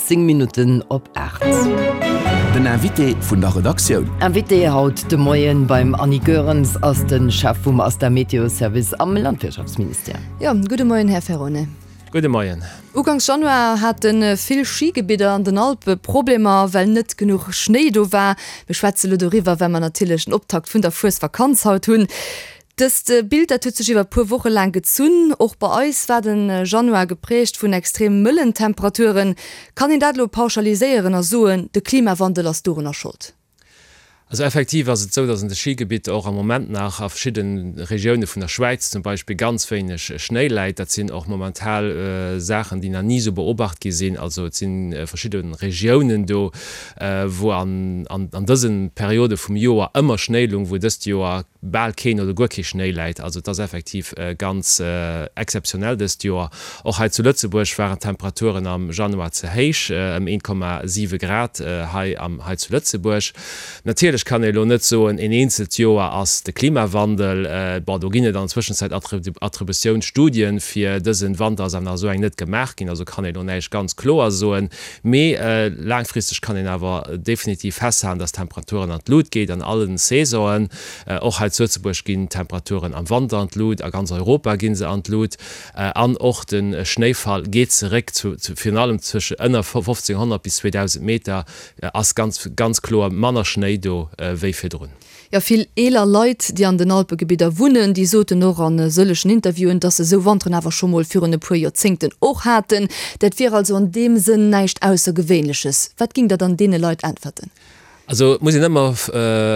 10 Minutten op 8. Den Invité vun der Redaktioun. Invité haut de Moien beim Annie Goerens ass de Chef vum ASTA Meteo Service am Landwirtschaftsministère. Jo, gudde Moien, Här Ferone. Gudde Moien. Uganks Januar hate vill Schigebidder an den Alpe Problemer, well net genuch Schnéi do war. Mir schwätze lo doriwwer, well mer natierlech den Optakt vun der Fuesvakanz haut hunn. Dëst Bild, dat huet sech iwwer puer Woche laang gezunn. Och bei eis war de Januar geprägt vun extrem mëllen Temperaturen. Kann een dat elo pauschaliséieren a soen, de Klimawandel ass dorunner Schold? Also effektiv ass et esou, datt an de Schigebitter och am Moment nach a verschidde Regioune vun der Schwäiz zum Beispill ganz wéineg Schnéi läit. Dat sinn och momental Saachen, déi nach ni esou beobacht gi sinn. Also et si verschidde Regiounen do, wou an dëse Periode vum Joer ëmmer Schnéi lung, wou dëst Joer bal keen oder guer kee Schnéi läit. Also et ass effektiv ganz exzeptionell dëst Joer. Och hei zu Lëtzebuerg waren d'Temperaturen am Januar ze héich, ëm 1,7 Grad hei am hei zu Lëtzebuerg. Natierlech kann ee elo net soen, een eenzelt Joer ass de Klimawandel. Bon, do ginn et an der Zwëschenzäit Attributiounsstudien, fir dësen Wanter ass awer nach esou eng net gemaach ginn, also kann ee elo näischt ganz kloer soen. Mee laangfristeg kann een awer definitiv festhalen, dass d'Temperaturen an d'Lut geet an allen Saisonen. Och hei zu Lëtzebuerg ginn d'Temperaturen am Wanter an d'Lut, a ganz Europa gi se an d'Lut. An och de Schnéifall geet zeréck, virun allem zwësche ënner 1500 bis 2000 Meter ass ganz ganz kloer manner Schnéi do wéi virdrun. Jo, vill eeler Leit, déi an den Alpegebidder wunnen, déi soten och a sëllegen Interviewen, dass se esou Wanteren awer scho mol virun e puer Joerzéngten och haten. Dat wier also an deem Sënn näischt Aussergewéinleches. Wat géingt Der dann deene Leit äntwerten? Also et muss een ëmmer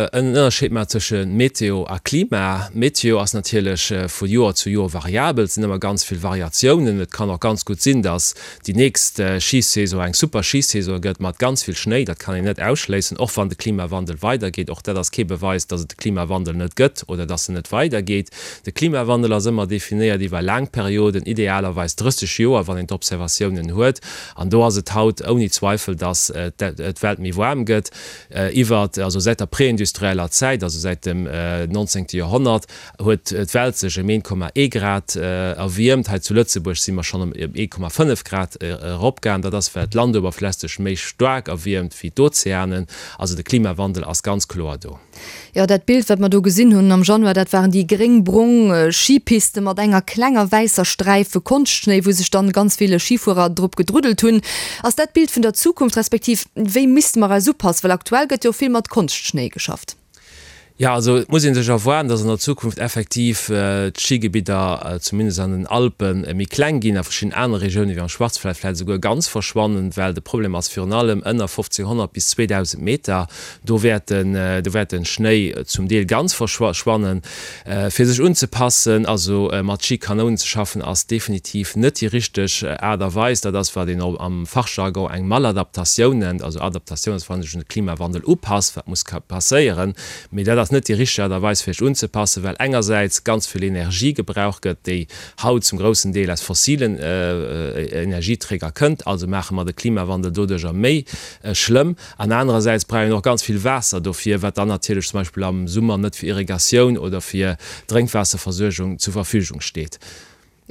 en Ënnerscheed maachen zwësche Meteo a Klima. Meteo ass natierlech vu Joer zu Joer variabel, et sinn ëmmer ganz vill Variatiounen. Et kann och ganz gutt sinn, dass déi nächst Schisaison eng super Schisaison gëtt mat ganz vill Schnéi, dat kann een net ausschléissen, och wann de Klimawandel weidergeet. Och dat ass kee Beweis, datt et de Klimawandel net gëtt oder datt en net weidergeet. De Klimawandel ass ëmmer definéiert iwwer laang Perioden, idealerweis 30 Joer, wann een d'Observatiounen huet. An do ass et haut ouni Zweifel, datt d'Welt méi waarm gëtt. Iwwer, also säit der preindustrieller Zäit, also säit dem 19. Joerhonnert, huet d'Welt sech ëm 1,1 Grad erwiermt. Hei zu Lëtzebuerg si mer schonn ëm 1,5 Grad eropgaangen. Dat ass, well d'Landuewerfläch sech méi staark erwiermt wéi d'Ozeanen. Also de Klimawandel ass ganz kloer do. Jo, dat Bild, wat mer do gesinn hunn am Januar, dat waren déi gréng-brong Schipiste mat enger klenger wäisser Sträif Konschtschnéi, wou sech dann ganz vill Schifuerer drop gedruddelt hunn. Ass dat d'Bild vun der Zukunft, respektiv wéi misste mer eis upassen? Well aktuell gëtt jo vill mat Konschtschnéi geschafft. Jo, also et muss ee sech erwaarden, datt an der Zukunft effektiv d'Schigebidder, zumindest an den Alpen, méi kleng ginn, a verschidden anere Regiounen, wéi am Schwarzwald, vläicht esouguer ganz verschwannen, well de Problem ass virun allem ënner 1500 bis 2000 Meter, do wäert den, do wäert de Schnéi zum Deel ganz verschwannen. Fir sech unzepassen, also mat Schikanounen ze schaffen, ass definitiv net déi richteg Aart a Weis. Dat ass, wat een am Fachjargon eng Maladaptatioun nennt. Also Adaptatioun ass, wann ee sech un de Klimawandel upasst, wat muss passéieren. Mee dat ass net déi richteg Aart a Weis, fir sech unzepassen, well engersäits ganz vill Energie gebraucht gëtt, déi haut zum groussen Deel aus fossilen Energieträger kënnt. Also maache mer de Klimawandel doduercher méi schlëmm. An anerersäits brauch een och ganz vill Waasser dofir, wat dann natierlech zum Beispill am Summer net fir Irrigatioun oder fir Drénkwaasserversuergung zur Verfügung steet.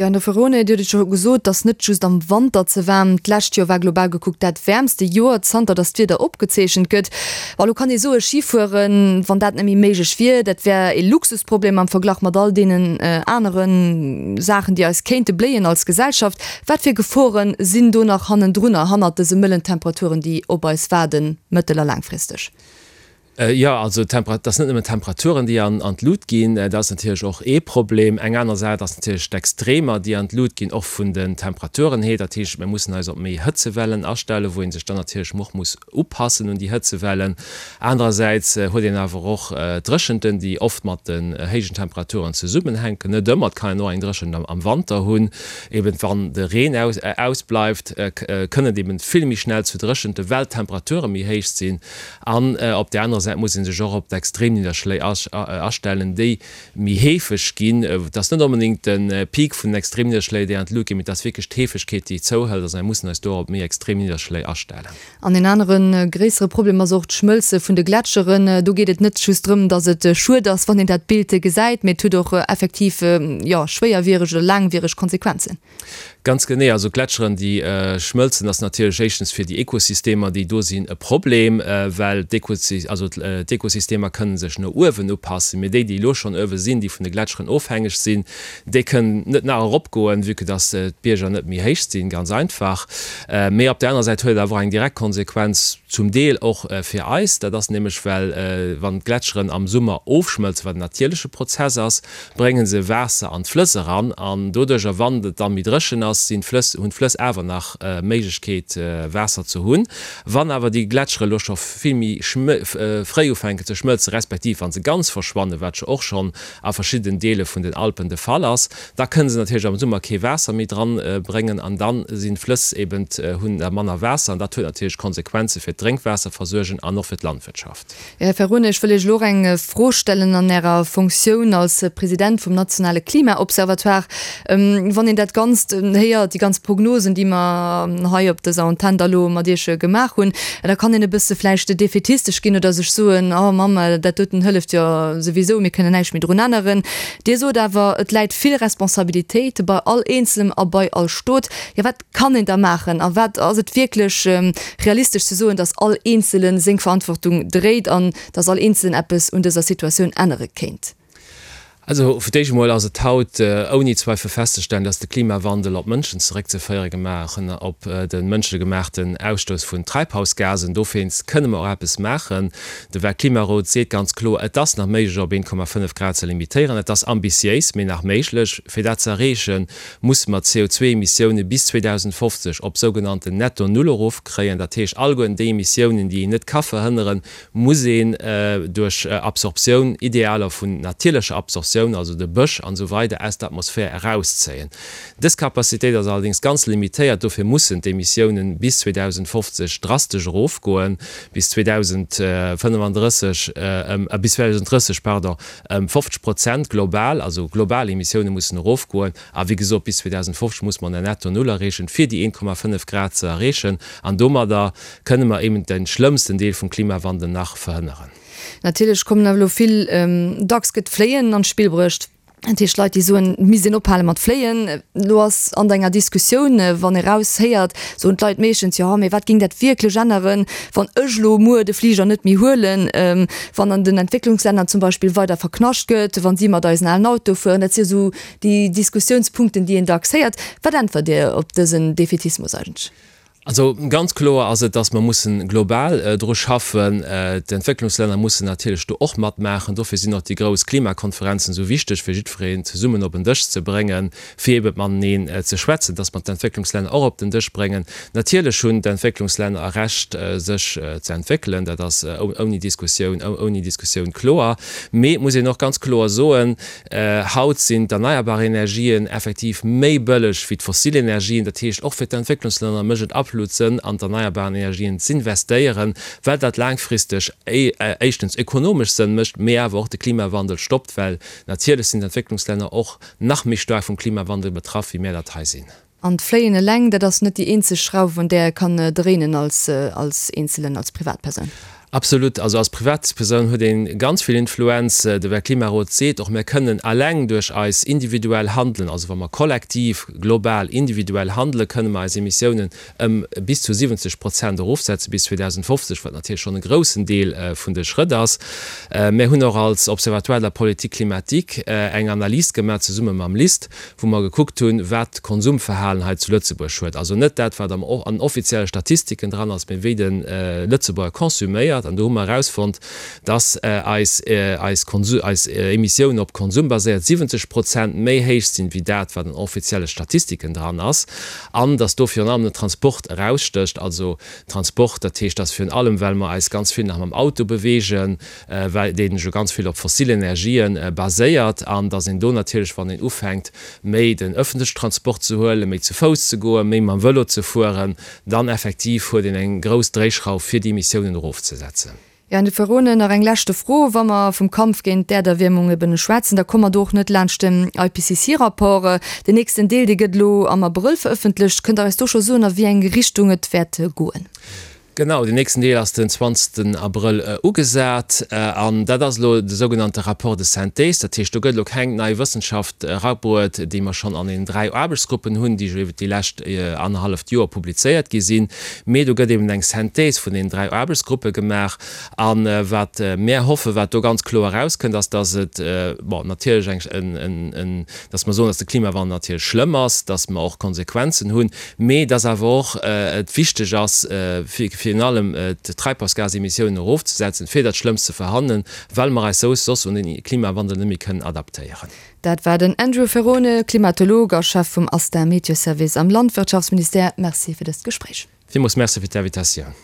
Jo, Här Ferrone, Dir hutt et scho gesot, et ass net just am Wanter ze waarm. D'lescht Joer war global gekuckt dat wäermste Joer, zanter datt d'Wieder opgezeechent gëtt. Bon, elo kann ee soen, Schifueren, wann dat net méi méiglech wier, dat wär ee Luxusproblem am Verglach mat all deenen anere Saachen, déi eis kéinte bléien als Gesellschaft. Wat fir Gefore sinn do nach hannendrunner, hannert dëse mëllen Temperaturen, déi op eis waarden, mëttel a laangfristeg? Jo, also et ass net nëmmen d'Temperaturen, déi an d'Lut ginn, dat ass natierlech och ee Problem. Eng aner Saach ass natierlech d'Extremer, déi an d'Lut ginn, och vun den Temperaturen hier. Dat heescht, mir mussen eis op méi Hëtzewellen astellen, wou ee sech dann natierlech och muss upassen un déi Hëtzewellen. Anerersäits huet een awer och Dréchenten, déi oft mat den héijen Temperaturen zesummenhänken. Net ëmmer, et kann een och eng Dréchent am Wanter hunn. Eben wann de Reen ausbleift, kënn et eben vill méi schnell zu Dréchenten, well d'Temperature méi héich sinn. An op där anerer. Säit muss ee sech och op d'Extremnidderschléi astellen, déi méi heefeg ginn. Et ass net onbedéngt de Peak vun den Extremnidderschléi, déi an d'Lut ginn, mee et ass wierklech d'Heefegkeet, déi zouhëlt. Also mir mussen eis do och op méi extrem Nidderschléi astellen. An en anere gréissere Problem ass och d'Schmëlze vun de Gletscheren. Do geet et net just drëm, datt et schued ass, wann een dat Bild gesäit, mee et huet och effektiv, jo, schwéierwiereg oder laangwiereg Konsequenzen. Ganz genee. Also Gletscheren, déi schmëlzen, ass natierlech éischtens fir déi Ekosystemer, déi do sinn, e Problem, well d'Ekosystemer kënne sech no uewen upassen, mee déi, déi elo schonn uewe sinn, déi vun de Gletscheren ofhängeg sinn, déi kënnen net nach eropgoen, vue que dass d'Bierger net méi héich sinn, ganz einfach. Mee op där anerer Säit huet et awer och eng direkt Konsequenz zum Deel och fir eis. Dat ass nämlech, well wann d'Gletscheren am Summer ofschmëlzen, wat en natierleche Prozess ass, brénge se Waasser an d'Flëss eran an doduercher, wann et dann méi dréchen ass, sinn d'Flëss, hunn d'Flëss awer nach Méiglechkeet Waasser ze hunn. Wann awer déi Gletschere elo scho vill méi fréi ufänken ze schmëlzen, respektiv wa se ganz verschwannen, wat jo och schonn a verschiddenen Deele vun den Alpen de Fall ass, da kënne se natierlech am Summer kee Waasser méi dran bréngen an dann sinn d'Flëss eben, hunn da manner Waasser an dat huet natierlech Konsequenze fir d'Drénkwaasserversuergung an och fir d'Landwirtschaft. Här Ferrone, ech wëll Iech elo och eng Fro stellen an Ärer Fonctioun als President vum nationale Klimaobservatoire. Wann een dat Ganzt héiert, déi ganz Prognosen, déi mer hei op dëser Antenn da lo mat Iech gemaach hunn, da kann een e bësse vläicht defätistesch ginn oder sech soen, Oh Mamm, dat doten hëlleft jo souwisou, mir kënnen näischt méi drun änneren. Dir sot awer, et läit vill Responsabilitéit bei all Eenzelem a bei all Stot. Jo, wat kann een da maachen a wat ass et wierklech realistesch ze soen, datt all Eenzele seng Verantwortung dréit an datt all Eenzelen eppes un dëser Situatioun ännere kéint? Also fir d'éischt emol ass et haut ouni Zweifel festzestellen, datt de Klimawandel op d'Mënschen zeréckzeféiere gemaachen, op de mënschegemaachten Ausstouss vun Treibhausgasen. Dowéinst kënne mer och eppes maachen. De Weltklimarot seet ganz kloer, et ass nach méiglech op 1,5 Grad ze limitéieren. Et ass ambitiéis, mee nach méiglech. Fir dat ze erreechen, musse mer d'CO2-Emissioune bis 2050 op sougenannten Netto Null erofkréien. Dat heescht, alleguerten déi Emissiounen, déi een net ka verhënneren, muss een duerch Absorptioun, idealer vun natierlecher Absorptioun, also de Bësch an esou weider, aus der Atmosphär erauszéien. Dës Capacitéit ass allerdéngs ganz limitéiert, dofir mussen d'Emissiounen bis 2050 drastesch erofgoen, bis 2035 ëm, bis 2030, pardon, Ëm 50 Prozent global, also global Emissioune mussen erofgoen. A wéi gesot, bis 2050 muss mer en Netto Null erreechen, fir déi 1,5 Grad ze erreechen. An domadder kënne mer eben de schlëmmsten Deel vum Klimawandel nach verhënneren. Natierlech kommen awer elo vill, dacks gëtt d'Fléien an d'Spill bruecht. Dat heescht Leit, déi soen, et misst een ophale mat fléien. Elo ass an enger Diskussioun, wann ee raus héiert, soen d'Leit meeschtens, jo, mee wat géing dat wierklech änneren, wann ech elo muer de Fliger net méi huelen, wann an den Entwécklungslänner zum Beispill weider verknascht gëtt, wann si mat eisen alen Autoe fueren. Dat si jo esou déi Diskussiounspunkten, déi een dacks héiert. Wat äntwert Dir op dësen Defaitismus eigentlech? Also ganz kloer ass et, dass mer mussen global dru schaffen. D'Entwécklungslänner mussen natierlech do och matmaachen. Dofir sinn och déi grouss Klimakonferenzen esou wichteg, fir jiddwereen zesummen op en Dësch ze bréngen, fir ebe mateneen ze schwätzen, dass mer d'Entwécklungslänner och op den Dësch bréngen. Natierlech hunn d'Entwécklungslänner e Recht, sech ze entwéckelen. Dat ass ouni Diskussioun, ouni Diskussioun kloer. Mee et muss een och ganz kloer soen, Haut sinn d'erneierbar Energien effektiv méi bëlleg wéi d'fossil Energien. Dat heescht, och fir d'Entwécklungslänner mécht et absolut Sënn, an d'erneierbaren Energien z'investéieren, well dat laangfristeg éischtens ökonomesch Sënn mécht, mee awer och de Klimawandel stoppt, well natierlech sinn d'Entwécklungslänner och nach méi staark vum Klimawandel betraff, wéi mär dat hei sinn. An d'Fléien eleng, dat ass net déi eenzeg Schrauf, un där e kann dréinen als als Eenzelen, als Privatpersoun. Absolut. Also als Privatpersoun huet ee ganz vill Influenz. De Weltklimarot seet och, mir kënnen eleng duerch eis individuell Handelen, also wa mer kollektiv, global, individuell handelen, kënne mer eis Emissiounen ëm bis zu 70 Prozent erofsetze bis 2050, wat natierlech schonn e groussen Deel vun de Schrëtt ass. Mir hunn och als Observatoire de la politique climatique eng Analys gemaach, zesumme mam LIST, wou mer gekuckt hunn, wat d'Konsumverhalen hei zu Lëtzebuerg huet. Also net dat, wat am an offizielle Statistiken dran ass, mee wéi de Lëtzebuerger konsuméiert. An do hu mer erausfonnt, dass eis eis Konsu eis Emissiounen op Konsum baséiert 70 Prozent méi héich sinn, wéi dat, wat an offizielle Statistiken dran ass. An dass do virun allem den Transport erausstécht. Also Transport, dat heescht, dass virun allem, well mer eis ganz vill nach mam Auto beweegen, well deen jo ganz vill op fossil Energien baséiert, an datt een do natierlech, wann een ufänkt, méi den öffentlechen Transport ze huelen, méi zu Fouss ze goen, méi mam Vëlo ze fueren, dann effektiv huet een eng grouss Dréischrauf, fir déi Emissiounen erofzesetzen. Jo, Här Ferrone, nach eng leschte Fro. Wa mer vum Kampf géint d'Äerderwiermung eben schwätzen, da komme mer do och net laanscht den IPCC-Rapport. Den nächsten Deel, dee gëtt elo am Abrëll verëffentlecht. Kënnt Der eis do scho soen, a wéi eng Richtung et wäert goen? Genau, den nächsten Deel ass den 20 Abrëll ugesat. An dat ass elo de sougenannte Rapport de synthèse. Dat heescht, do gëtt elo keng nei Wëssenschaft erabruet, déi mer schonn an den 3 Aarbechtsgruppen hunn, déi jo iwwert déi lescht annerhalleft Joer publizéiert gi sinn. Mee do gëtt eben eng Synthèse vun deenen 3 Aarbechtsgruppe gemaach. A wat mär hoffen, wat do ganz kloer erauskënnt, ass, dass et, bon, natierlech eng, en, dass mer soen, dass de Klimawandel natierlech schlëmm ass, dass mer och Konsequenzen hunn, mee dass awer och et wichteg ass, fir virun allem d'Treibhausgasemissiounen erofzesetzen, fir dat Schlëmmst ze verhanneren, well mer eis soss un den Klimawandel net méi kënnen adaptéieren. Dat war den Andrew Ferrone, Klimatolog a Chef vum ASTA Meteoservice am Landwirtschaftsministère. Merci fir dëst Gespréich. Villmools Merci fir d'Invitatioun.